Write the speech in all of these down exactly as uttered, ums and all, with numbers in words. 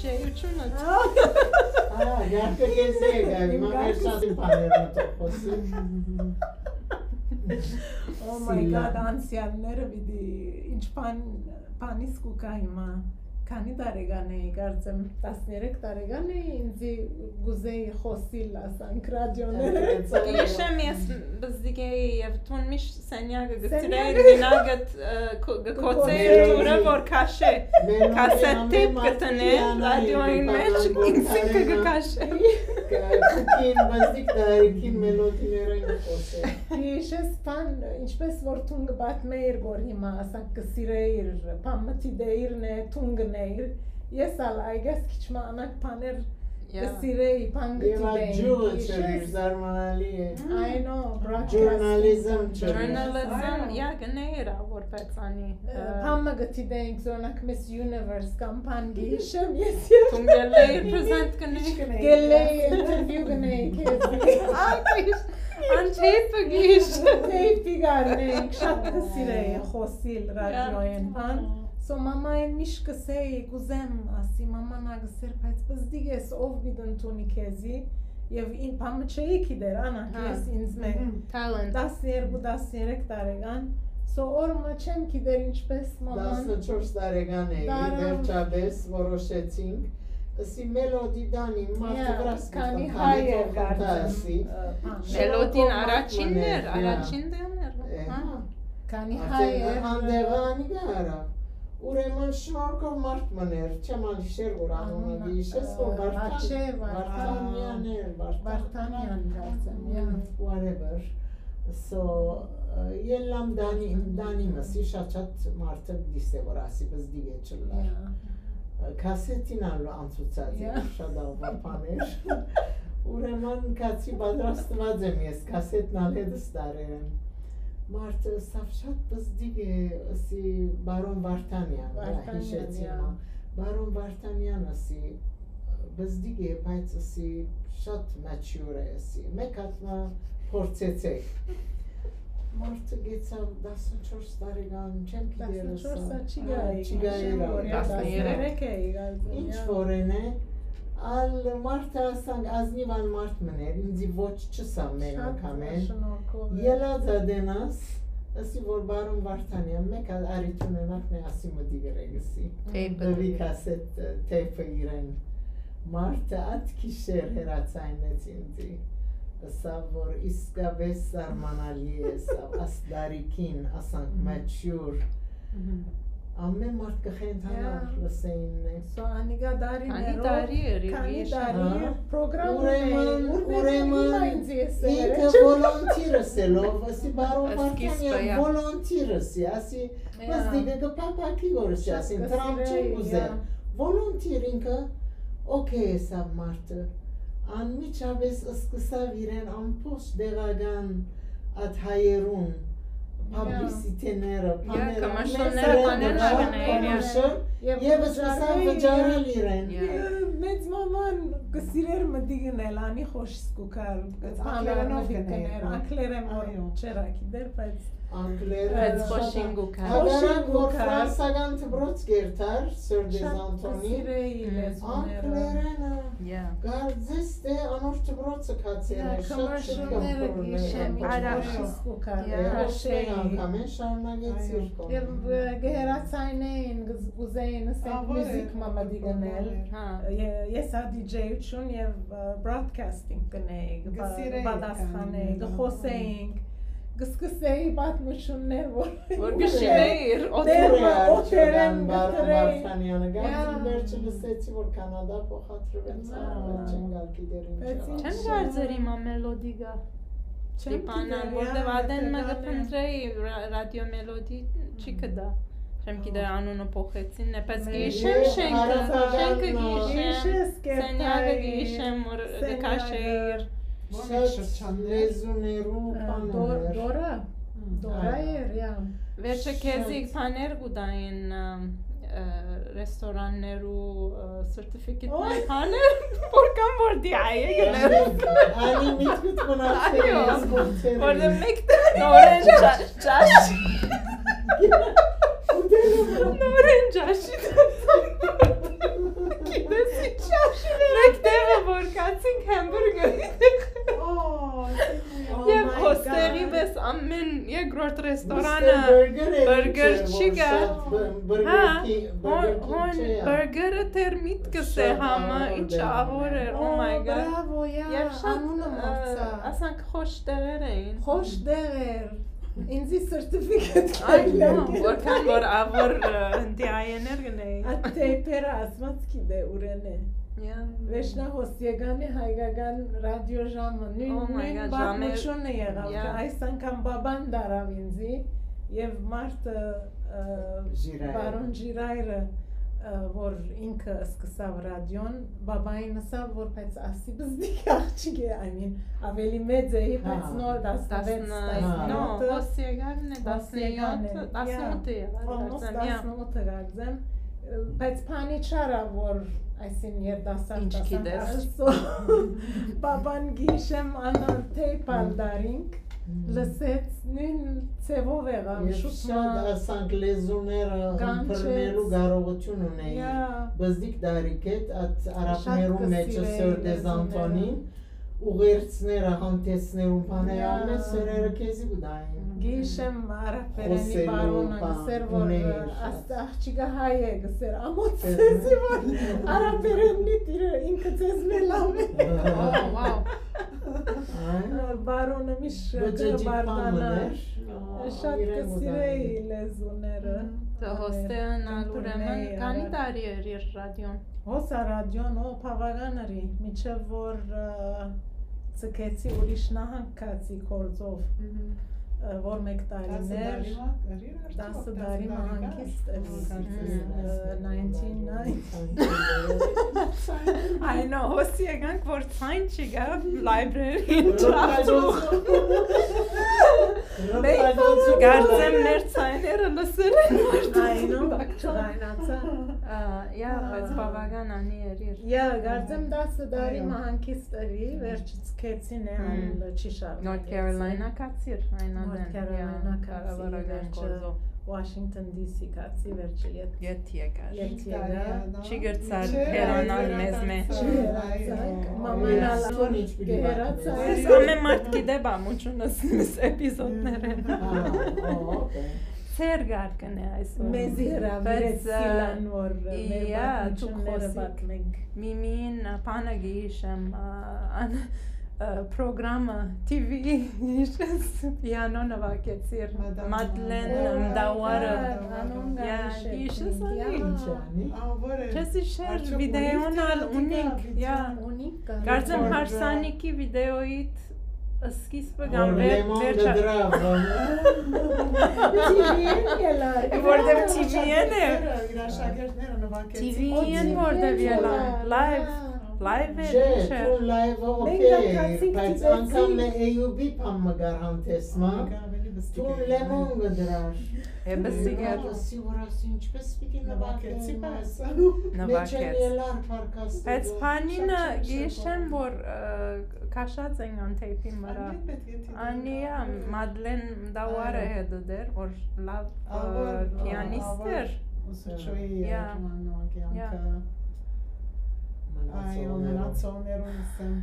Ջերութիւնը։ Ահա, գարկը քեզի եկայ, հիմա վերջացին բաները մտով խօսի։ Oh my God, անցեալները պիտի, ինչ բան, բանից կու գայ հիմա։ Քանի՞ տարեկան էի, կարծեմ, տասներեք տարեկան էի, ինձի կուզեի խօսիլ, ասանք, ռադիոները։ Գիշեմ ես բզդիկ էի եւ դուն միշտ սենյակը գցիր էիր, մենակ գ-, ը, քո-, գ-, կոչէր դուռը, որ քաշէ, քասետ թեյփ գտնէ, ռադիոյին մէջ, ինքզինքը կը քաշէ։ Կուքին, բզդիկ տարիքին մելոդիներէն կը խօսէ։ Իշես բան, ինչպես որ դուն կը պատմէիր, որ հիմա, ասանք, կը սիրէիր, բան մը դիտեիր նե, դուն կ'ընէիր, ես ալ, I guess, քիչ մը անակ բաներ կը սիրէի, բան կը դիտեի, ջուղը չերիր, զարմանալի է։ I know, broadcasting. Journalism չերիր։ Journalism, yeah, կ'ընէիր, ա, որպես անի, ը, բան մը կը դիտեինք, օրինակ, Miss Universe կամ բան կը յիշեմ, ես եւ դուն գելլեի present կ'ընէի։ Գելլեի interview կ'ընէի քեզի։ Ա, գիշ, անթեյփը գիշ։ Թեյփի կ'առնենք, շատ կը սիրէի խօսիլ ռադիոյէն, բան։ So մամային միշտ կ'ըսէի, կ'ուզեմ, ասի, մաման ա կ'ըսէր, բայց պզդիկ ես, ով պիտի ընդունի քեզի, եւ ին-, բան մը չէի գիտեր, անակ, ես ինձ մէ talent, տասներկու, տասներեք տարեկան, so օր մը չեմ գիտեր ինչպես մաման տասնչորս տարեկան էի, վերջապես որոշեցինք, ըսի Մելոդի Դանի մարդը վրաս քանի հայ էր կարծեմ, ը, բան։ Մելոդին առաջինն էր, առաջին դերն էր, հա։ Քանի հայ էր, հանդեղը անիկա արաւ։ Ուրեմն շնորհքով մարդ մըն էր, չեմ ալ հիշեր որ անունը, յիշես որ Վարդան, Վարդանեան էր, Վարդանեան կարծեմ, yeah, whatever։ So, ը, ելլամ Դանի, Դանի մսի շատ շատ մարդը դիսե որ ասի բզդիկ է չլար։ Քասետին ալ անցուցած էր շատ աղվա բաներ։ Ուրեմն կացի պատրաստված եմ ես, քասետն ալ հետս տարեր եմ։ Մարդը սավ շատ բզդիկ է, ըսի բարոն Վարդանեան, հիշեցի մա։ Բարոն Վարդանեան ըսի, բզդիկ է, բայց ըսի շատ mature է, ըսի։ Մեկ հատ մը փորձեցեք։ Մարդը գեցաւ տասնչորս տարեկան, չեմ գիտեր ըսա։ Տասնչորս չի գայ, չի գայ, տասներեք էի գալու։ Ինչ որ են է, ալ մարդը ասանք, ազնիվ ալ մարդ մներ, ինձի ոչ չսա մեն անգամեն։ Ելած ատենաս, ըսի որ բարոն Վարդանեան, մեկ ալ արիթ ունենաք նե ասի մտի գրեգսի։ Տեյպը։ Դվի կասետ, տեյպը իրեն։ Մարդը ատ քիշեր հերացայնեց ինձի։ Ըսա որ իսկապես զարմանալի է, սա ասդարիքին, ասանք mature։ Ամեն մարդ կը խենթանար, լսեին է։ So անիկա դարիներով, քանի տարի էր, քանի տարի, պրոգրամ ունեի, ուրեմն, ուրեմն ինքը volunteer ըսելով, ասի բարոն Վարդանեան volunteer ըսի, ասի, բզդիկը կը փափաքի որ ըսի, ասին, դրամ չեմ ուզեր։ Volunteer ինքը, okay ըսաւ մարդը, անմիջապես սկսաւ իրեն ամբողջ դեղական ատ հայերուն publicity-ները, բաները, կմշոներ, բաներ ա գնային, commercial, եւ սկսան վճարել իրեն։ Մեծ մաման կը սիրեր մտի գնել, անի խոշ սկուքար, բաներ մտի գներ, ակլերեն որ չերակի դեր, բայց ակլերը, բայց խոշին գուքար։ Հակառակ որ ֆրանսական դպրոց կերթար, Sir Desanton-ի, ակլերենը, գարձես դե անոր դպրոցը կացեր է, շատ շուտ կմխորներ, խոշ սկուքար, խոշ անգամ են շարունակեցիր կոմեն։ Եւ, ը, կհերացայնեին, կուզեին, ասենք, մյուզիք մամադի գնել, ես ա DJ-ություն եւ, ը, broadcasting կնեի, պատասխանեի, կխոսեինք, կսկսեի պատմություններ, որ գշիրեիր, օտերը, օտերեն Բարոն Վարդանյանը գանձին վերջը լսեցի, որ Կանադա փոխադրվեցավ, չեմ գալ գիտեր ինչ։ Չեմ կարծեր հիմա Մելոդի գա։ Չեմ գիտեր, որտեվ ադեն մը կփնտրեի, ռադիո Մելոդի չի կդա։ Չեմ գիտեր անունը փոխեցին, բայց գիշեմ շենքը, շենքը գիշեմ, սենյակը գիշեմ, որ կքաշեիր։ Շատ լեզուներու բաներ։ Դորա, Դորա էր, yeah։ Վերջը քեզի բաներ կուտային, ը, ը, ռեստորաններու, ը, certificate-ներ, բաներ, որքան որ դի այ եկել։ Անի միտքուտ մնացել ես գործերը։ Որտե մեկ նորեն ճաշ, նորեն ճաշի, գիտես Կացինք հեմբուրգեր։ Oh, oh Եվ my հոստեղի God. Պես ամեն երկրորդ ռեստորանը Mister Burger-ը բըրգեր ինչ էր, չի որ գա։ շատ բը-, բըրգեր Հա, քի-, հոն, բըրգեր քի հոն չէ, բըրգերը դեռ միտքս է շատ համը, ահոր ինչ դեր ահոր էր, oh my Oh, God։ Բրավո, յա, Եվ շատ, անունը ը, մոռցայ։ Ասանք խոշ տեղեր էին։ Խոշ տեղեր։ Ինձի սերտիֆիկետ Այ, նո, որքան որ ավոր, ը, դիայեներ գնեի։ Ա թեյփերը ասված գիտե ուրեն է։ Yeah. Վերջնա հոս եկան է հայկական ռադիո ժամը, նույն, Oh my նույն God, պատմությունը եղավ, Yeah. Այս անգամ բաբան դարավ ինձի, եւ մարդը, ը, Ժիրայր։ Բարոն Ժիրայրը, ը, որ ինքը սկսավ ռադիոն, բաբային ասաւ, որ բայց ասի բզդիկ աղջիկ է, I mean, ավելի մեծ էի, բայց Հա։ նոր տասնվեց, Տասն-, տասնյոթը։ նո, հոս եկան է, Հոս եկան է, տասնյոթը, yeah. Տասնութը եղան, Almost կարծեմ, yeah. Տասնութը կարծեմ, բայց բանի չարա, որ այսին երիտասարդ Ինչ ասանք, գիտես։ Այսօ, բաբան գիշեմ անոր թեյփալ դարինք, լսեց, նույն ձևով եղավ, Ես շուտ շատ մա- ասանք լեզուները Կանչեց։ Ըմբռնելու կարողություն ունեի։ Yeah. Բզդիկ դարիք հետ, այդ արաբներու Շատ մեջը կսիրեի Սոր դե լեզուները։ Զանթոնին, ուղերձները, հանդեսներուն բաները, Yeah. ամեն սերերը քեզի կու դային։ Գիշեմ արաբերենի Խոսելու բարոնը բան, գսեր, որ ուներ։ Աստ աղջիկը հայ է, գսեր, ամոց Դե- ձեզի, որ արաբերենի տիրը ինքը ձեզ մե լավ է։ Oh, wow. Այ, Բարոնը միշտ Բջջի բարդանա։ պամն էր։ Շատ Իրեն կսիրեի ուզάει։ Լեզուները։ Դե հոստեան ալ ուրեմն Ըմբռնեի քանի արագ։ Տարի էր իր ռադիոն։ Հոս ա ռադիոն, ո, բավական արի, մինչեւ որ, ը, ցկեցի ուրիշ նահանգ գացի գործով, Մհմ։ ը, որ մեկ տարիներ, Տասը տարի մը, արի, արդյոք տասը տարի մը տասը տարի հանգիստ էր։ Հա, Ը, nineteen ninety. I know, հոսի եկանք, որ ցայն չի գա, library-ին չաղթու։ Մենք կարծեմ մեր ցայները լսել են, որ I know, չգայնացա։ Ա, yeah, բայց բավական անի էր իր։ Yeah, կարծեմ տասը տարի Այո։ Մը հանգիստ էի, վերջից քեցին է, Հմ։ Ան չի շարունակեցի։ North Carolina կացիր, այնան North Carolina կացի, կառավարական վերջը գործով։ Washington D C կացի, վերջը ետ-, Ետ եկար։ Ետ եկա։ Չի գրցար Չէ, հեռանալ մեզ մէջ։ Չի հեռացանք, մաման ալ Սոնիչ պիտի կհեռացա։ Ես ամեն մարդ գիտե բամուչունս միս էպիզոդներեն։ Հա, օ, օքեյ։ Սեր գարկն է այսօր։ Մեզի հրավիրեց Բայց, ը, Սիլան, որ մեր yeah, պատմությունները դուք պատմենք։ Միմին, ը, բանը գիշեմ, ը, ան, ը, պրոգրամը, T V, գիշես, պիանո նվագեցիր, Մադամ Մադլեն Մադլեն Մդավարը։ Մդավարը։ Անոնք Yeah, գիշեր գիշես կնենք, անի։ Yeah. Ինչ անի։ Ա, որ է։ Քեզի շեր Արդյոք վիդեոն ունի՞ք ալ կա, ունինք, yeah. վիդեոն ունինք կա։ Կարծեմ Որ հարսանիքի վիդեոյիդ սկիզբը կամ Որ վեր-, Լեմոն վերջը։ Կդրավ, T V-ն ելա։ Որտեղ T V-ն է։ Իր աշակերտները նվագեցին։ T V-ն որտեղ ելա։ Live, live է, Չէ, ինչ է։ Դու live-ը Մենք օքեյ, ակացինք բայց դիտեցինք։ Անգամ է A U B բան մը գար հանդեսմա։ Անգամ էլի բստիկ Դու է։ Լեմոն կդրար։ Է, բստիկ է։ Լեմոն ասի, որ ասի, ինչպես պիտի Նվագեցի, նվագեմ, բայց Մեջը Նվագեց։ Ելար փարկաստը, Բայց դու բանինը շատ չեմ գիշեմ, շփոթ։ Որ, ը, քաշած են ան թեյփի վրա։ Անի պետք է թիթին Անի, ա, կապել։ Մադլեն Դավարը Այո։ Հետը դեր, որ լավ, Ա, որ, ը, պիանիստ ա, որ էր։ Սուչոյի Yeah. Ջուաննո Yeah. կյանքը։ Մնացողներով։ Այո, մնացողներուն ասեմ։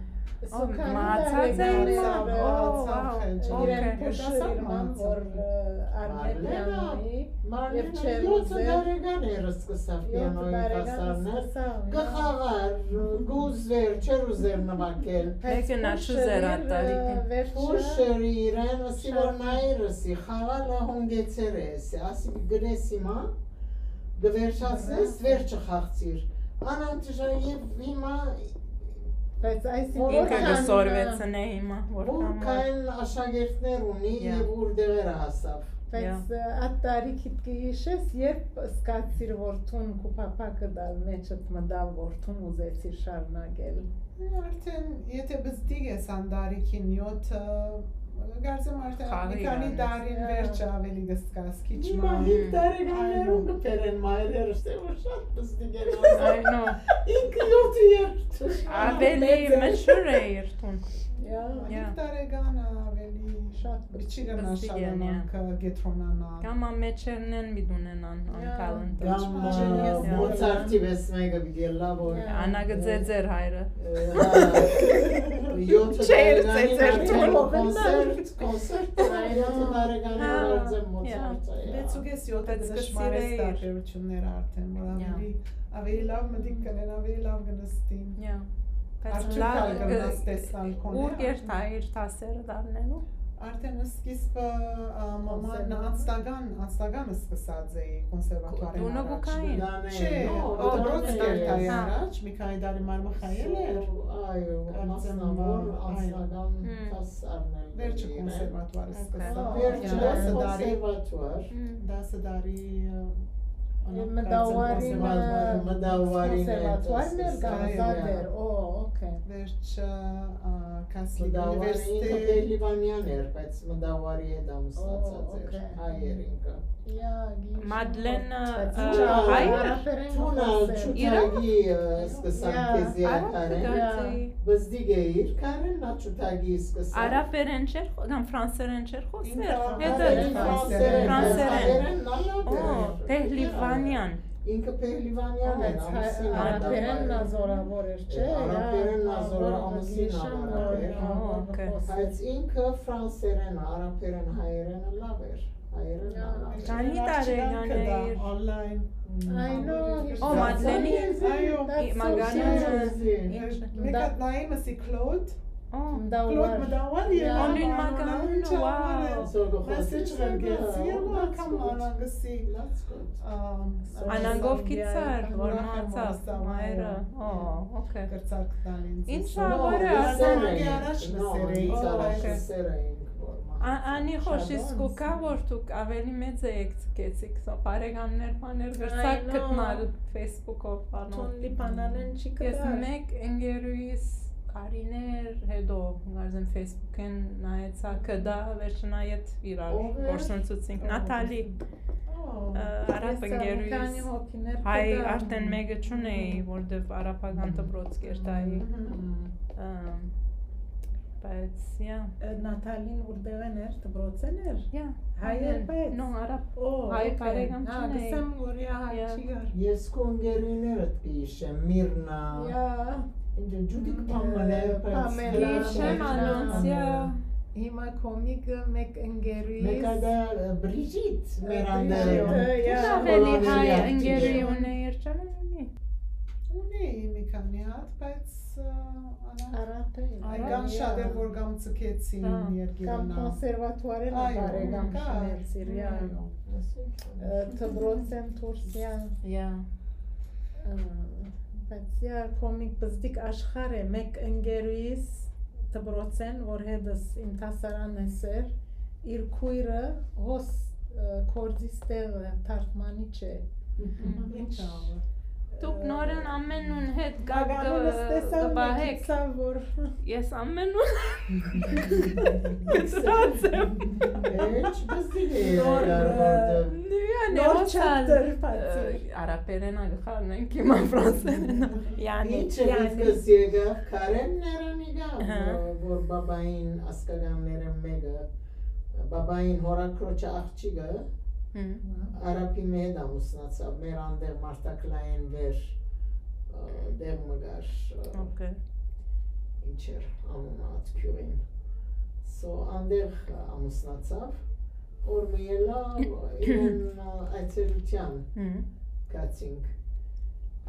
Սոքանի Մահացած է տարեգարը, հիմա։ Ո, մահացավ, wow, իրեն օքեյ։ փոշը Դասակ իրման, մահացավ։ Որ, ը, առնե Մարլենա, պիանոյի, Մարլենա և չէր յոթ ուզեր, տարեկան էր սկսավ յոթ պիանոյի տարեկան կասարներ։ Սկսավ, Կը խաղար, կ'ուզեր, չէր ուզեր նվագել։ Մեկը նա չուզեր այդ տարիքին։ Վերջը Փոշը իրեն, ասի, որ Շատ նայր, ասի, խաղալը հունգեցեր է, ասի, ասի, գնես հիմա, կը վերջացնես, վերջը խաղցիր։ Անանտիժա և հիմա Բայց այս Որ Ինքը որքան կը սորվեցնե հիմա, որքան որ որքան աշակերտներ ունի Yeah. և ուր դեղերը հասավ։ Բայց, Yeah. ը, այդ տարիքիդ կը հիշես, երբ սկացիր, որ թուն քու փափակը դալ մեջդ մտավ, որ թուն ուզեցիր շարունակել։ Արդեն, եթե բզդիկ ես ան տարիքին յոթը, կարծեմ արդեն Խաղի մի քանի գալիս։ Տարին Yeah. վերջը ավելի կսկաս, քիչ Հիմա մահ։ հինգ տարեկաններուն Այո։ Կբերեն մայրերս, թե որ շատ բզդիկ են Այ նո։ Ինքը յոթը երթ։ Ավելի Մեծ է։ Մշուր է իր թուն։ Yeah. Հինգ Yeah. տարեկանը ավելի Շատ պիտի գնա շատ անոնք կեդրոնանան։ Կամ ամեջերնեն պիտի ունենան անկալն։ Կամ Մոցարտի վեց մէկը պիտի ելլայ, որ անա կը ձեզեր հայրը։ Յոթը տարեկանի ծեծեր կոնսերտ, կոնսերտ, յոթը տարեկանի Մոցարտը։ Վեց ու կես, յոթը դժմարես տարբերությունները արդեն, որ ավելի, ավելի լավ մտիկ կնեն, ավելի լավ կնստին։ Արդյոք լավ կնաս տեսնալ քոնը։ Ուր կերթայիր դասերը դառնելու։ Արդեն սկիզբը, ա, մաման անձնական, անձնական սկսած էի կոնսերվատուարին առաջ։ Դունը գուքային։ Չէ, դպրոց կերթայի առաջ, մի քանի տարի մարմխայել էր։ Այո, մասնավոր անձնական դաս առնել։ Վերջը կոնսերվատուարը սկսա։ Վերջը դասը տարի, կոնսերվատուար։ Դասը տարի, ա, մտավարին, մտավարին կոնսերվատուարն էր, գանզատ էր, օ, օքեյ։ Վերջը, ա, Catholic University։ Մտավարին ինքը Պեհլիվանեան էր, բայց մտավարի հետ ամուսնացած էր, հայ էր ինքը։ Մադլեն, ա, հայ էր։ Թունալ Չութագի, ա, սկսան քեզի ակարեն։ Բզդիկ է իր քարեն, նա Չութագի սկսան։ Արաբերեն չէր խո-, կամ ֆրանսերեն չէր խոսեր։ Ինքը Հետո արաբերեն, ֆրանսերեն, ֆրանսերեն։ Հայերեն նալա Օ, Պեհլիվանեան։ Ինքը Պեհլիվանեան էր, ամուսին արաբերեն նազորավոր էր, չէ՞։ Արաբերեն նազորը ամուսին արաբեր։ Օ, օքեյ։ Բայց ինքը ֆրանսերեն, արաբերեն, հայերեն լավ էր։ Հայերեն լավ էր։ Քանի տարեկան էիր։ Online։ I know. Օ, Մադլենի։ Այո, that's so interesting։ Մեկ հատ նայեմ, ասի Claude։ Claude մտավար է, անուն մականունը, wow։ Message ղրկեցի, welcome, անանգսի։ Անանգով գիցար, որ մնացավ մայրը։ Օ, օքեյ։ Կրցակ տան ինձ։ Ինչ լավ էր, ասեմ։ Դասարանքի առաջ լսեր էի, առաջ լսեր էինք, որ մնացավ։ Անի խոշ իսկ ու կա, որ դուք ավելի մեծ էիք, գեցիք, սա բարեկամներ, բաներ, կրցակ գտնալ Facebook-ով, բանով։ Թուն լիբանանեն չի գտար։ Ես մեկ ընկերուհիս տարիներ հետո, կարծեմ Facebook-ին նայեցա, կդա, վերջնայետ իրար գործընծուցինք։ Նաթալի, արապ ընկերուհիս, հայ արդեն մեկը չունեի, որտեվ արապական դպրոց կերտայի, բայց, yeah։ Նաթալին ուրդեղեն էր, դպրոցեն էր։ Yeah, հայ էր, բայց նո, արապ, հայ բարեկամ չունեի։ Գսեմ, որ yeah, հայ չի գար։ Ես քո ընկերուհիներդ կհիշեմ, Միրնա։ Ինքը ջուդիկ Փամելեր, բայց Փամելեր, հիշեմ անոնց, yeah։ Հիմա կոմիկը մեկ ընկերուհիս։ Մեկ ադա Բրիժիտ մեր անդերը։ Բրիժիտը, yeah։ Ավելի հայ ընկերուհի ունեիր, չեմ իմի։ Ունեի մի քանի հատ, բայց, ա, արապ է։ Այ կամ շատ էր, որ կամ ցկեցին երկիրը։ Կամ կոնսերվատուարեն բարեկամ շիներ Սիրիա։ Դպրոցեն Թուրքիա։ Yeah։ Բայց yeah, կոմիկ բզդիկ աշխարհ է, մեկ ընկերուհիս դպրոցեն, որ հետս իմ դասարանն է սեր, իր քույրը հոս, ը, գործի ստեղը թարգմանիչ է։ Ինչ աղը։ Դուք նորեն ամենուն հետ կապ կը-, կպահեք։ Գիտսա, որ ես ամենուն գծած եմ։ Ինչ բզդիկ է նոր, ը, նոր chapter բացի։ Արաբերենա գխարնենք հիմա ֆրանսերենա։ Յանի, ինչ է յանի։ Դուքս եկավ, Քարեն Ներանիգա, հա, որ, որ բաբային ասկականները մեկը, բաբային հորակրոջը աղջիկը, հմ, արաբի մը հետ ամուսնացավ, մեր անդեղ Մարտակլային վեր, ը, դեղ մը կար, ը, օքեյ, ինչ էր անունը այդ գիւղին։ So, անդեղ ամուսնացավ, որ մը ելա իրեն, ը, այցելության, հմ, գացինք։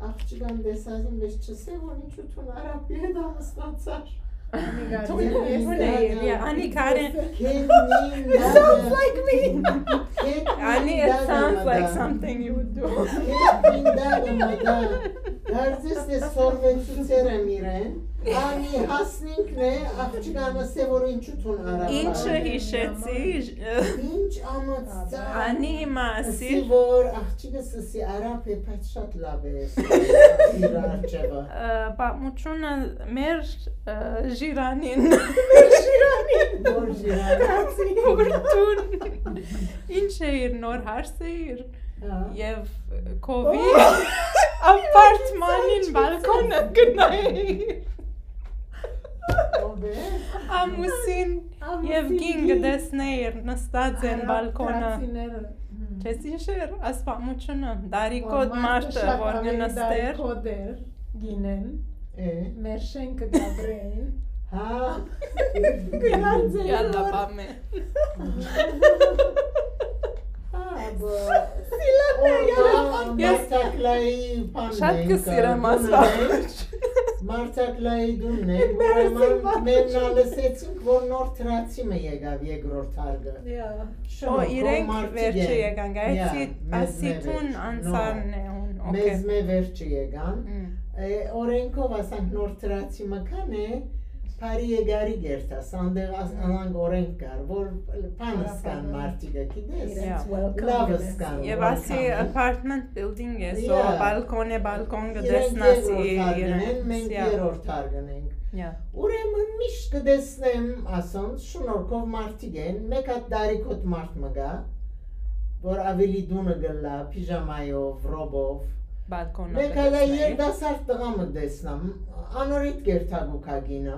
Աղջկան տեսածին մէջ չսե, որ ինչու թուն արաբի հետ ամուսնացար։ Թուն, ես թուն էի, yeah, անի քարեն։ It sounds like me. Անի, it sounds like something you would do. Քետ մինդանը մտա, կարծես թե սորվեցուցեր եմ իրեն, անի հասնինքն է, աղջկանը սե, որ ինչու թուն արաբի։ Ինչը հիշեցի, ինչ ամաց, անի հիմա ասի, որ աղջիկս սի արաբ է, բայց շատ լավ է իր արջևը։ Ը, պատմությունը մեր, ը, ժիրանին։ Մեր ժիրանին։ Որ ժիրանին։ Որ դուն։ Ինչ է իր նոր հարցը իր։ Հա։ Եւ քովի ապարտմանին բալկոնը գնայի։ Ամուսին եւ կին կը տեսնէիր նստած են բալկոնը։ Չես իշեր ասպամուչունը, դարիքոտ մարդը, որ կը նստեր։ Դարիքոտ էր, գինեն, մեր շենքը գաբրեին։ Հա։ Գնացել։ Յալլա, պամե։ Մարտակլայի բանն է, շատ կը սիրեմ ասպամուչ։ Մարտակլայի դունն է, ուրեմն մեննա լսեցինք, որ նոր թրացի մը եկաւ երկրորդ հարկը։ Ո, իրենք վերջը եկան, գայցի ասի թուն անցանն է հուն, օքեյ։ Մեզ մե վերջը եկան։ Օրենքով ասանք նոր թրացի մը կան է, բարի եկարի գերտաս, անդեղ անանք օրենք կար, որ բանս կան մարդիկը, գիտես, լավս կան։ Եւ ասի apartment building է, so balcony, balcony կը տեսնաս իրենց։ Մենք երրորդ հարկն ենք։ Ուրեմն միշտ կը տեսնեմ, ասոնց, շնորհքով մարդիկ են, մեկ հատ դարիքոտ մարդ մը գայ, որ աւելի դունը գլլայ, պիժամայով, ռոբով։ Balcony-ը։ Մեկ հատ երիտասարդ տղայ մը տեսնեմ, անորիտ կերթակու կինը,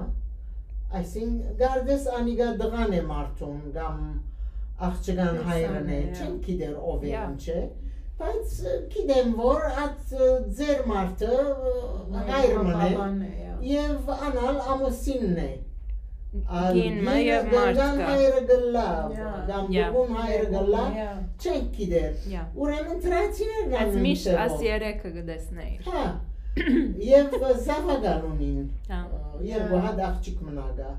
այսինքն կարծես անիկա տղան է մարդուն կամ աղջկան հայրն է, չեմ գիտեր ով է, ինչ է, բայց գիտեմ, որ այդ ձեր մարդը հայր մն է եւ անալ ամուսինն է։ Կին մը եւ մարդ կը։ Հայրը գլլայ, կամ բուն հայրը գլլայ, չենք գիտեր։ Ուրեմն թրացիներն ան միշտ աս երեքը կը տեսնեիր։ Հա, եւ զաւակալ ունին, երկու հատ աղջիկ մնա գայ։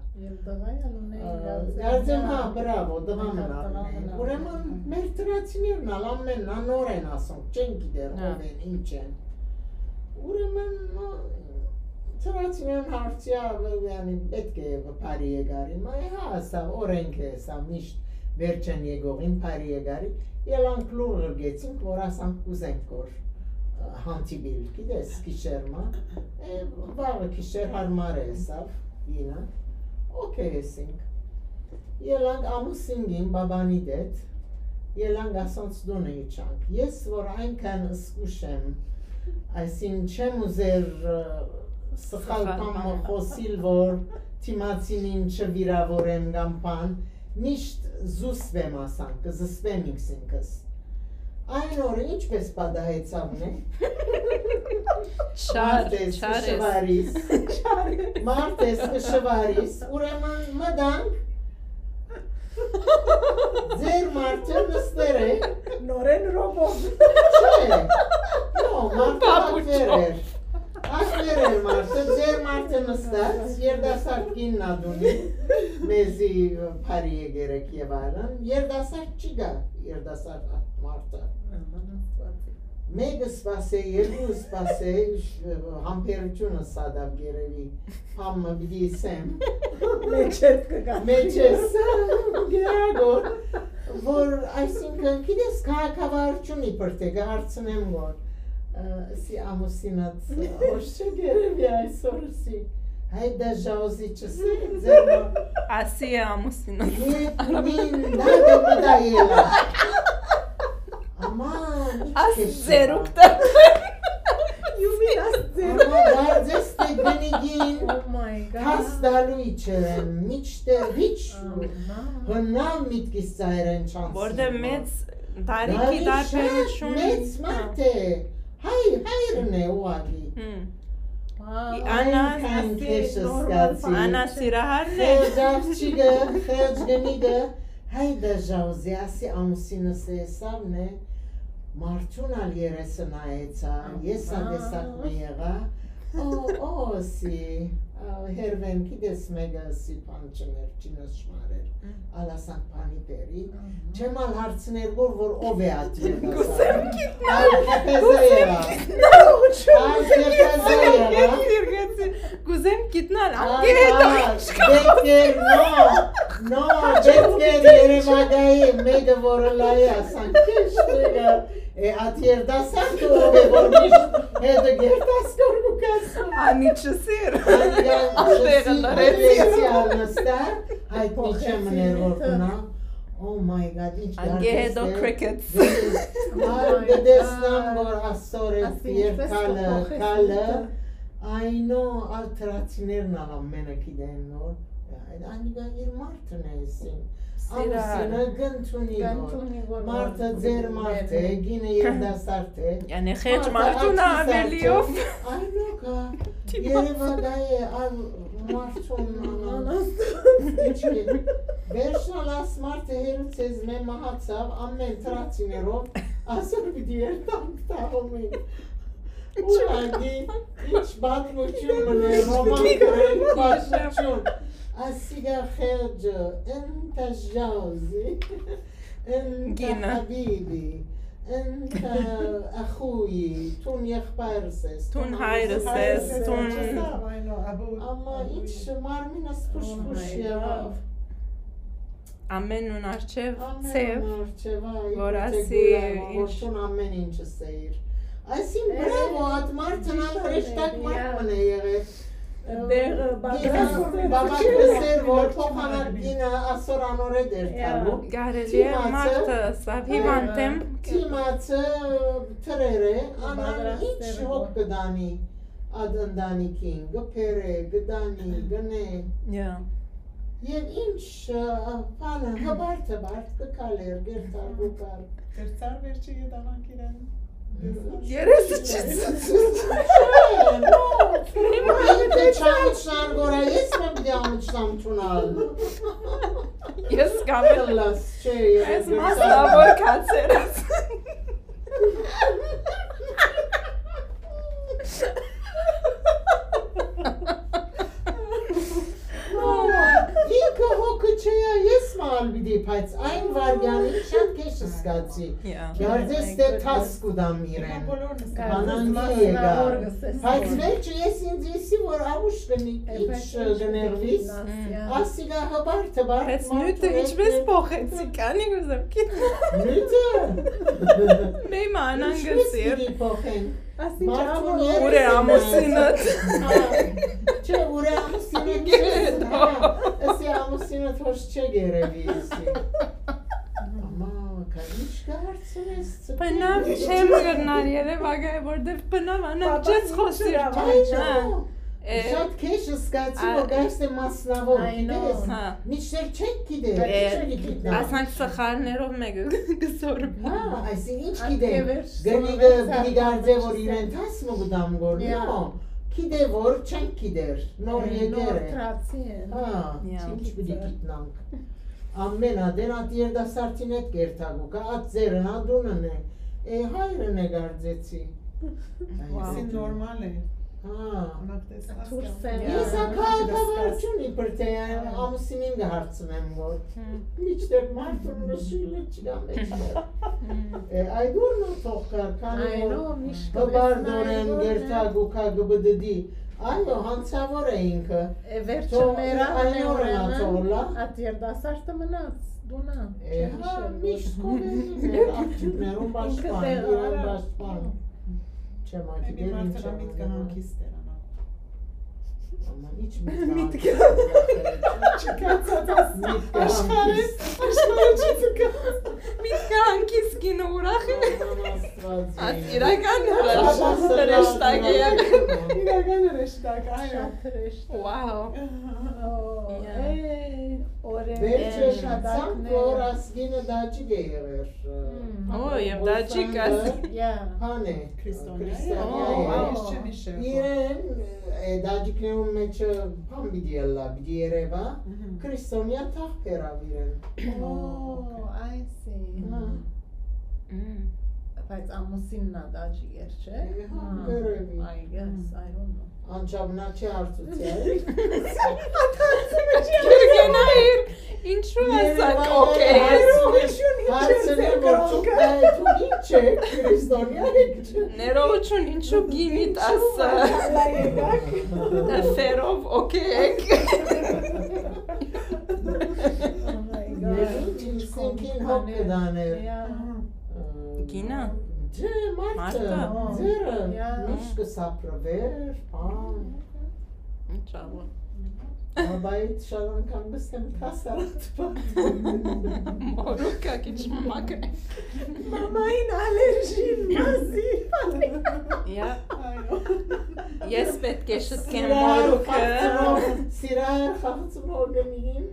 Կարծեմ, հա, բրավո, տղայ մնալ ունին։ Ուրեմն մեր թրացիներն ալ ամենն ան նոր են ասոնք, չեն գիտեր ով են, ինչ են։ Ուրեմն թրացիներն հարցիա, յանի, պետք է բարի եկարի, մայ հա, սա օրենք է, սա միշտ վերջին եկողին բարի եկարի, ելանք լուր ղրկեցինք, որ ասանք կուզենք որ հանդիպիլ, գիտես, գիշեր մը, վաղը գիշեր հարմար է սավ, ինը, օքեյ եսինք։ Ելանք ամուսինին բաբանի դետ, ելանք ասոնց տունը իջանք։ Ես որ այնքան զգուշ եմ, այսին չեմ ուզեր սխալ բան մը խոսիլ, որ թիմացինին չվիրավորեմ կամ բան, միշտ զուսպեմ ասանք, կզսպեմ ինքս ինքս։ Այն օրը ինչպես պատահեցաւ, նե։ Չար, մարտես չար ես։ Շվարիս։ Մարտես շվարիս, ուրեմն մտանք, ձեր մարդը նստեր է։ Նորեն ռոբոտ։ Չէ, նո, մարդը ակվեր էր։ Ակվեր էր մարդը, ձեր մարդը նստած, երդասարդ կինն ա դունի, մեզի բարի եկերեք եւ այլն, երդասարդ չի գա, երդասարդ մարդը։ Մեկը սպասե, երկու սպասե, համբերությունը սադավ գերեւի, համը պիտի սեմ։ Մեջերդ կգա։ Մեջես, գերագոր, որ, այսինքն, գիտես, քաղաքավարություն իբր թե կհարցնեմ, որ, ը, սի ամուսինած, ոչ չէ գերեւի այսօր, սի, հայ դա ժաուզի չսի, ձեր մա- Ասի է ամուսինը։ Ետ մին դա դե մտա ելա։ Աման, ինչ Աս քեշ ձերուկ չկա։ You mean աս ձերուկ։ Ահա, դարձես թե գնիգին Oh my God. Հաս դալու իջերեմ, մինչդեռ հիչ Ահա. հնամ միտքիս ծայրեն չանցնի։ Որտե մեծ տարիքի Դալի շատ տարբերություն։ Մեծ մարդ է, հայ, հայրն է ուղղակի։ Հմ. Wow. Անա Այնքան Ասի քեշ նորմալ զգացի։ Անա սիրահարն է։ Խեղճ աղջիկը, խեղճ գնիկը, հայ դա ժաուզի, ասի ամուսինս է, սավն է, մարդուն ալ երեսը նայեցա, ես ա տեսակ մը եղա, օ, օ, սի, ա, հերվեն, գիտես մեկը սի բան չներ, չինս շմարեր, ալ ասանք բանի բերի, չեմ ալ հարցներ որ, որ ով է ատի Կուսեմ գիտնալ, Ալ կեփեզը եղա, ալ կեփեզը եղա, Կուզեմ գիտնալ, ան կեհետա Ահա, դեպքեր, նո, նո, դեպքեր Երևանայի մեկը որը լայ է, ասանք, քեշ մեկը, է, ատ երդասարդը ով է, որ միշտ հետը գերտասկոր կու կասում։ Անի չսիր։ Անի Ատեղը չսիր, լրեցի։ Լրեցի ալ նստա, հայտնի չեմ ներ որ կնա։ Oh my God, ինչ Ան գեհեդո դարձ է։ Crickets։ Ան կտեսնամ, որ ասոր է Ասի, ինչպես երկալը, կփոխես կալը, միտը։ Այնո, ալ թրացիներն ալ ամենը գիտեն նոր։ Անիկա իր մարդն է էսին։ Սիրար։ Ամուսինը կ'ընդունի որ։ Կ'ընդունի որ մարդը ձեր մարդ է, գինը երիտասարդ է։ Յանի խեղճ մարդուն ակնի սարդը ավելիով։ Այնո կա։ Երևակայ է ալ մարդուն անաստած։ Ինչի։ Վերջնալ աս մարդը հերու ձեզմէ մահացաւ, ամեն թրացիներով ասոր պիտի երթանք թաղում ենք։ Ուղղակի, ինչ պատմություն մնա, ռոման գրելու պատմություն։ Ասիկա խեղճը, ընտա ժաուզի, ընտա Գինը։ Հաբիբի, ընտա ախուի, թուն եղբայրս ես, Թուն թուն հայրս ես, հայրս ես, թուն չսա, այո, աբու, Ամա աբու։ Ինչ մարմինս փուշ-փուշ Oh my եղավ։ God։ Ամենուն արջեւ Ամեն ցեւ, մար չէ, վայ, որ իբր թե ասի գուլայ, որ ինչ։ Թուն ամեն ինչը սեիր։ Այսին Էհ, բրավո, ատ մարդն ալ ճիշդ հրեշտակ է, մարդ յա։ Մնա եղեր։ Դեղը Գինը, պատրաստ է։ Բաբա կսեր, որ փոխանակ գինը ասոր անորետ էր Յա։ Թալու։ Կարելի է Թիմացը, մարդը սա հիվանդ եմ։ Թիմացը թրեր է, անան Պատրաստ ինչ էր հոգ որ։ Կդանի, ատ ընտանիքին, կփերե, կդանի, կնե։ Յա։ Եվ ինչ, ը, բանը, հբարդ, հբարդ կը քալեր, գերտար, գուկար։ Դերցար վերջի ետանանք իրեն։ Երեսը չի ցցում։ Դե չամուչնան գորա, ես մեմ դե ամուչնամ թունալ։ Ես կամ էլ Լաս, չէ, ես Ես դերցար։ Մասնավոր կացեր ես։ Ինքը հոգը չէ, ես մալ պիտի, բայց այն վարյանին շատ քեշ զգացի։ Յա։ Գարձես դե թաս կուտամ իրեն։ Կանանցի եկա։ Բայց վերջը ես ինձ եսի, որ աղուշ կնի, ինչ կներվիս, ասիկա հբար թբար Բայց նյութը ինչպես փոխեցի, կանի գուզեմ գիտեմ։ Նյութը։ Մե մանան Ինչպես գսի։ Պիտի փոխեն։ Մարդուն Ուրե երեսը ամուսինը։ Հա, չէ, ուրե ամուսինը գերս, հա, ասի ամուսինը թոշ չէ գերեւի, ասի։ Ամա, կա, ինչ կա հարցնես, Բնավ չեմ գրնար երևակայ, որտեվ բնավ անակ Պապա չես ինչու խոսիր, լավ Այո, հա։ Է, շատ քեշ զգացի, ա- որ գայս է մասնավոր, I know. Գիտես, Հա։ Մինչդեռ չեք գիտեր, Բայց է, չեք գիտնա։ Ասանք սխալներով մեկը գսոր։ Հա, այսինքն ինչ Այդ գիտեմ, գևեր գնիգը սորվեց պիտի գարձե, որ սարքան իրեն տաս մը գտամ գոր, Yeah. նո, գիտե որ չենք գիտեր, նոր Է, եկեր նոր է։ Թրացի են։ Հա, Yeah. ինչ պիտի գիտնանք։ Ամեն ատեն ատ երդասարտին հետ կերթագուկա, ատ ձերն ա դունն է։ Է, հայրն է գարձեցի։ Wow. Սին նորմալ է։ Հա։ Անակ տեսնած Դուրս կան։ են Ես ա քաղաքավարություն իբր թե Հա։ ամուսինին կհարցնեմ, որ Հմ։ մինչդեռ մարդուն նշիլը չկա մեջտեղ։ Հմ։ Է, այդ ուրն ա թող կար, քանի Այո, որ միշտ հպարտ կտեսնայ օրեն որ գերթագուկա կբդդի։ Այո, հանցավոր է ինքը։ Է, վերջը Թող մեր ա, այն օրն ա ուրեմն, թող լա։ Ատ երդասարտը մնաց, դունը, Է, չեմ հա, հիշել, միշտ որ կովերին էր, աղջիկներուն Ինքը պաշտպան, դեղը իրեն արա։ պաշտպան։ Չեմ ակի Maybe դեր մարդը ինչ միտքը անում։ հանգիստ էր, անա։ Ամա, ինչ միտքը Միտքը։ հանգիստ էր, Չկացած աս Միտքը աշխարհի, հանգիստ։ Աշխարհը չցկաց։ Միտքը հանգիստ գինը ուրախ է։ Ամա, Աստված Աս իմ։ իրական Աբա հրաշ-, հրեշտակ է։ սրան Իրական հրեշտակ, այո։ Շատ հրեշտակ։ Wow. Ո, Yeah. է, օրեր Վերջը են, շացանք, դակներ։ որ ասկինը դաջիկ է եղեր, Հմ։ Ո, և դաջիկ աս- Yeah. Հան է, Քրիստոնյա է։ Քրիստոնյա Ո, է։ Wow. Ես չեմ հիշեր, որ Իրեն, է, դաջիկներուն մեջը բան պիտի ըլլա, պիտի երևա, Մհմ։ Քրիստոնյա թաղ բերավ իրեն։ Ո, I see. Հա։ Մմ։ Բայց ամուսինն ա դաջիկ էր, չէ? Է, հա, Հա, կերևի։ I guess, I don't know. Անչափ նա չի հարցուցել։ Գերգենայր, ինչու Երևան ասակ, օքեյ։ Ներողություն, ինչ Հարցնի, ես որ դուք, կրոնքը։ Դու ինչ եք, քրիստոնյա եք, չէ՞։ Ներողություն, ինչու գինիդ Ինչու ասա։ Մալլա եկաք։ Թերով, օքեյ եք։ Oh my God. Ներողություն, ինչ սենքին հոգ կդաներ։ Yeah. Գինը։ Ջե, մարդը, Մարդը։ Ձերը, Yeah. միշտ կսապրվեր, բան։ Ինչ աղոն։ Բայց շատ անգամ գսեմ կասարած բան։ Մորուքը քիչ մը մակը։ Մամային ալերժին մազի։ Yeah. Ես պէտք է շտկեմ մորուքը։ Սիրայր խաղցմող կնին,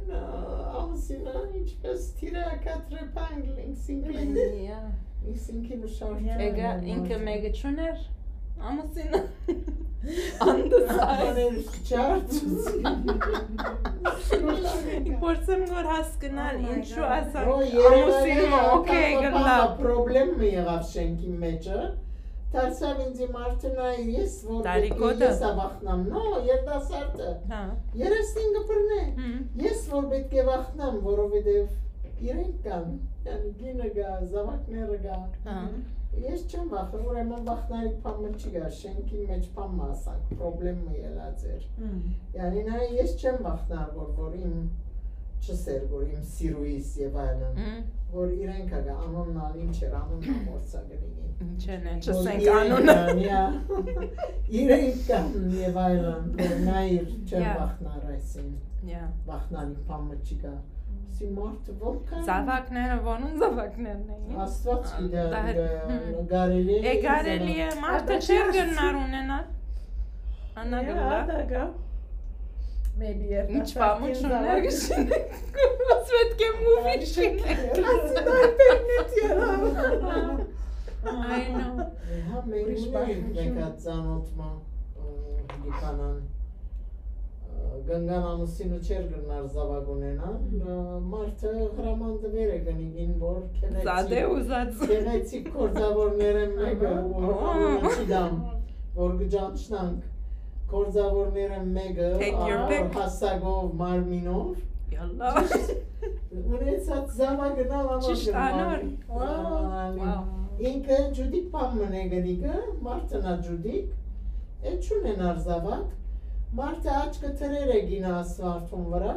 ամուսինը ինչպես թիրակատրեպան Լենքսինկին։ Լենքսինկին ուշարդը։ Էգա ինքը մեկը չուներ, ամուսինը։ Անդսայ։ Աներ չարչուց։ Փորձեմ որ հասկնալ, ինչու ասանք, ամուսինը օքեյ գլա։ Պրոբլեմ մը եղավ շենքի մեջը։ Դարձաւ ինձի մարդը նայ, ես որ պէտք է Տարիքոտը։ Ես ա վախնամ, նո, երիտասարդը։ Հա։ Երեսնին կը բռնէ։ Հմ։ Ես որ պէտք է վախնամ, որովհետեւ իրենք կան, յանի գինը կա, զաւակները կա։ Հա։ Ես չեմ վախ-, ուրեմն վախնալիք բան մը չի գա, շենքին մեջ բան մը ասանք, պրոբլեմ մը ելած էր։ Հմ։ Յանի նայ, ես չեմ վախնար, որ, որ իմ չսեր, որ իմ սիրուիս եւ այլն, Հմ։ որ իրենք ա գա, անոնն ալ ինչ էր, անոնն ալ մորցա կնինին։ Ինչ են, Որ չսենք իրենք անունը։ Ան, յա, իրենք կան եւ այլն, որ նայիր, չեմ Յա։ Վախնար այսին, Յա։ Վախնալիք բան մը չի գա։ Սի մարդը որքան Զավակները, որուն զավակներն էին։ Աստված գիտե, Ա, դա- գ-, Հմ։ կարելի է Է կարելի է, մարդը Ադա չէր չես- գնար ունենալ։ Անա Յա, գլա։ Ադա գա։ Maybe Ինչ պամուչուններ կշինենք։ Ես պետք է մուվի շինենք։ Ասի դա պերնետ եղա։ I know։ Հա, մենք Ուրիշ ունենք բան մեկ հատ ծանոթ մը, ը, Լիբանան, ը, Գնգան ամուսինը չէր գնար զավակ ունենան, ը, մարդը հրաման տվեր է գնիգին, որ քեղեցիկ, Զադե ուզած։ Քեղեցիկ գործավորներէն մեկը, Ահա։ որ անունը չի դամ, որ կճանչնանք, գործավորներէն մեկը, Take your ը, pick. Հասակով, մարմինով, Յալլա։ Ճիշտ ունեցած զավակն ալ Ճիշտ անոր։ Անոր։ Wow։ Wow։ Ինքը ջուդիկ բան մնե գնիկը, մարդն ա ջուդիկ, է չունենար զավակ, մարդը աչքը թրեր է գինը ասֆալթուն վրա,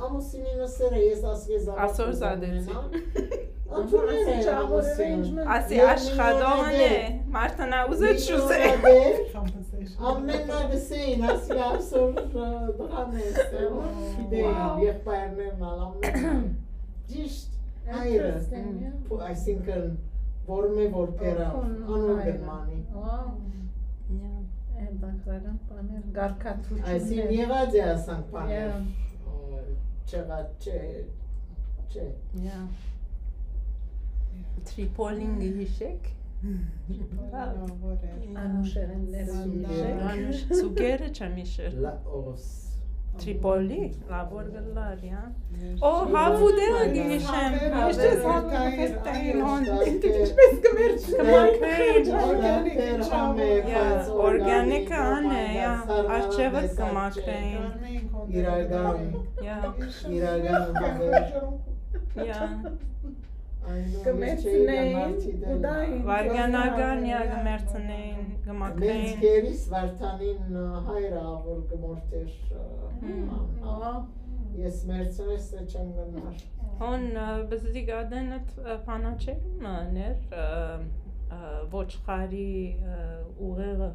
ամուսինին ըսեր է, ես ասկե զավակ Ասոր կուզեմ զադեցի։ Ունենալ, ընդուներ է Ասի ամուսինը։ Չաղորը Ասի Ես աշխատողն է, միլիոնադեր։ Մարդն ա ուզե չուզե։ Միլիոնադեր, Compensation։ Ամեն նա գսեին, ասի ասոր, ը, դրան է, Wow։ Գիտեին, եղբայրներն ալ ամեն։ Ճիշտ, հայրը, Interesting, yeah։ Փու-, այսինքն, որ մե որ Ո, պերավ, քուն անոր հայրը։ Գնմանի։ Wow։ Yeah։ Հետաքրքրական բաներ, կարգադրություններ։ Այսին եղած է ասանք բաներ, Yeah։ Ը, չեղած, չէ, չէ։ Yeah։ Տրիպոլին գհիշեք։ Տրիպոլին, որ էր։ Անուշերեն ներս Անուշ, Սուկերը չեմ իշեր։ Լաոս։ Տրիպոլի, լաւոր գլար, յա։ Ո, հավուդելը գնիշեմ։ Միշտ ես հավուդել հոն։ Ինչպես կմերջ կմակրեին, օրգանիկ, Տեր համեր, Yeah, բայց օրգանիկը օրգանիկ, ան է, yeah, սառնալը արժեւը դեսած չէ։ Կմակրեին։ Իրական, Yeah, իրական հավեր։ Yeah։ Այն Կմերցնեին, մարդի դեմ։ Կուտային, Վարգանական, yeah, կմերցնեին, Մենք կմակրեին։ Կերիս Վարդանին, ը, հայրը, որ կմորթեր, ը, Հմ։ Ահա։ Ես մերցրես, թե չեմ գնար։ Հոն, ը, բզդիկ ադենը, ը, փանաչերում ներ, ը, ը, ոչխարի, ը, ուղեղը։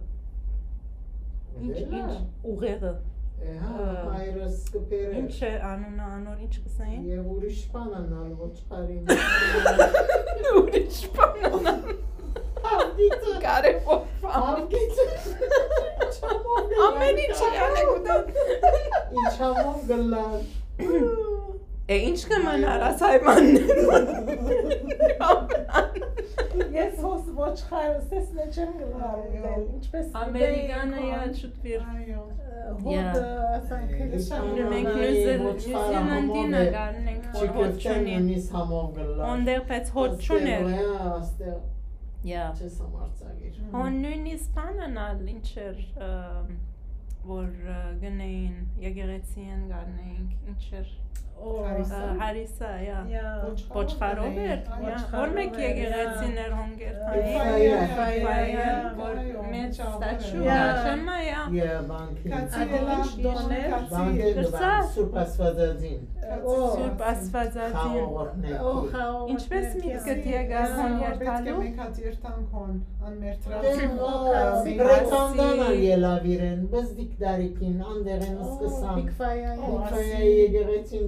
Ինչ, Դելա։ Ինչ ուղեղը։ Է, հա, Ը, հայրս կբերեր։ Ինչ է անունը անոր, ինչ կսային։ Եվ ուրիշ բան անալ, ոչխարին։ Ուրիշ բան անալ։ Ավգիծը։ Կարևոր բան։ Ավգիծը։ Ինչամով Ամեն ինչ եղան է գտան։ Ինչամով գլար։ Է, ինչ կմնար աս հայմաններուն։ Ես հոս ոչխարս ես նե չեմ գլարել, ինչպես Ամերիկանը, յա, չուտվիր։ Այո։ Հոտը, Yeah։ Ասանք, Ը, Նու-, մենք Նուզել-, Նուզիլանդին ա գարնենք, որ հոտ չունի։ Նույնիսկ համով գլար։ Օնդեղ պեց հոտ չուներ։ Աստեղ, յա, Չես համարձակիր։ Հոն նույնիսկ բանն ալ ինչ էր, ը, որ, ը, գնային եկեղեցիեն գարնեինք, ինչ էր, Ո, Հարիսա։ Ը, Հարիսա, յա։ Յա։ Ոչխարով Ոչխարով էր, էր, յա, Ոչխարով որ մեկ էր, եկեղեցին յա։ Էր հոնկեր Ը, թային, Ֆայա, Ֆայա, Ֆայա, յա, որ Ֆայա, մեծ Չաղ-, ստաչու, յա։ Յա, շեմա, յա։ Յա, բանկին։ Քացի Ա, ելա, ինչ դոն էր։ Քացի Բանկին ելա։ Դպան, Սուրբ Աստվածածին։ Ը, Ո, Սուրբ Աստվածածին։ Խաղողորդ ներքի։ Ո, խաղողորդ Ինչպես ներքի, միտքդ յա, եկար յա, հոն որ պետք է երթալու։ Մեկ հատ երթանք հոն, անմերթրած։ Դե, Ո, ը, Քացի։ Բրետանդան ալ ելավ իրեն, բզդիկ դարիքին, անդեղեն Ո, սկսան։ Բիգ Ֆայա, յա։ Բիգ Ֆայա Ասի։ Եկեղեցին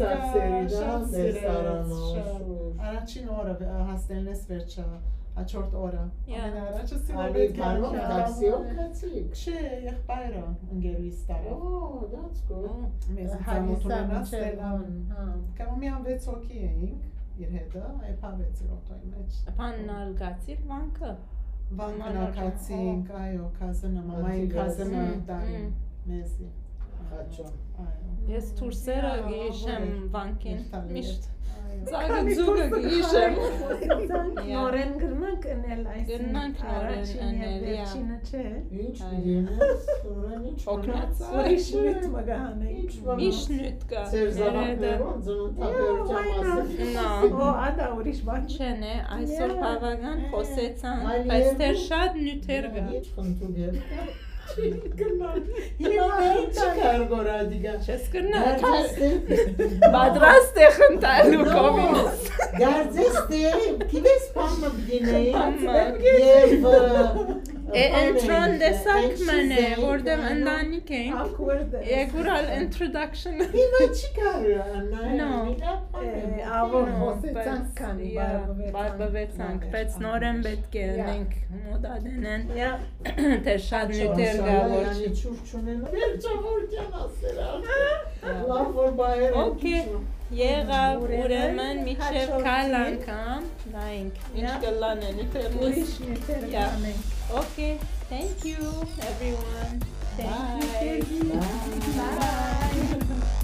Սարսերի, դա, շատ սիրեց, շատ։ Առաջին օրը, ը, հաստելնես վերջը, հաջորդ օրը։ Yeah. Ամենաառաջը սիրեց։ Անի բարով, տաքսիով գացիք։ Չէ, եղբայրը ընկերուհիս տարավ։ Oh, that's good։ Մեզ ծանոթ ունենաց Ստելան։ Հա։ Կամամիան վեց հոգի էինք, իր հետը, այ փավեց իր օթոյի մեջ։ Բանն ալ գացիր Վանքը։ Վանքը Մալարը, գացինք, այո, կազենը, մամային կազենը տարին մեզի։ Խաչոն։ Այո։ Ես դուրսերը գիշեմ Վանքին միշտ։ Այո։ Ծագը ձուկը գիշեմ։ Նորեն գրնանք ընել այս, գրնանք նորեն առաջինը, ընել, yeah, վերջինը չէ։ Ինչ պիտի ընես, նորեն ինչ օգնած։ Ուրիշ նիւթ մը կը հանենք։ Ինչ մնաց։ Ինչ նիւթ կա։ Ձեր զաւակներուն ծննդաբերության մասին։ No. Ո, ադա ուրիշ բան չէ, նե, այսօր բավական խոսեցանք, բայց դեռ շատ նիւթեր կա։ Ինչ խնդուկ էր։ Հիմա մերիք չի կար գոր ադիգա։ Չես կրնա, պատրաստ է խնդալու կովինս։ Գարձես թե, գիտես բան մը պիտի նեի, եւ, ը, Է, բան է, ընտրոն տեսակ մն է, որտեղ ընտանիք ենք։ Awkward է։ Եգուր ալ introduction։ Հիմա չի կար, Աննա, No. Աղոր No, խոսեցանք, բայց, քանի yeah, բարբվեցանք, բարբվեցանք, բայց նորեն պետք է Yeah. ընենք մոդա դնեն, Yeah. Թե շատ նյութեր կա, որ չի։ Չուր չունենա։ Վերջավորքյան ասել ա։ Լավ, որ բայերը Okay. Եղավ, ուրեմն մինչև քայլ անգամ նայենք ինչ կլան է նյութերն ուրիշ նյութեր Yeah. կանենք։ Okay, thank you everyone. Thank you, Bye. Bye.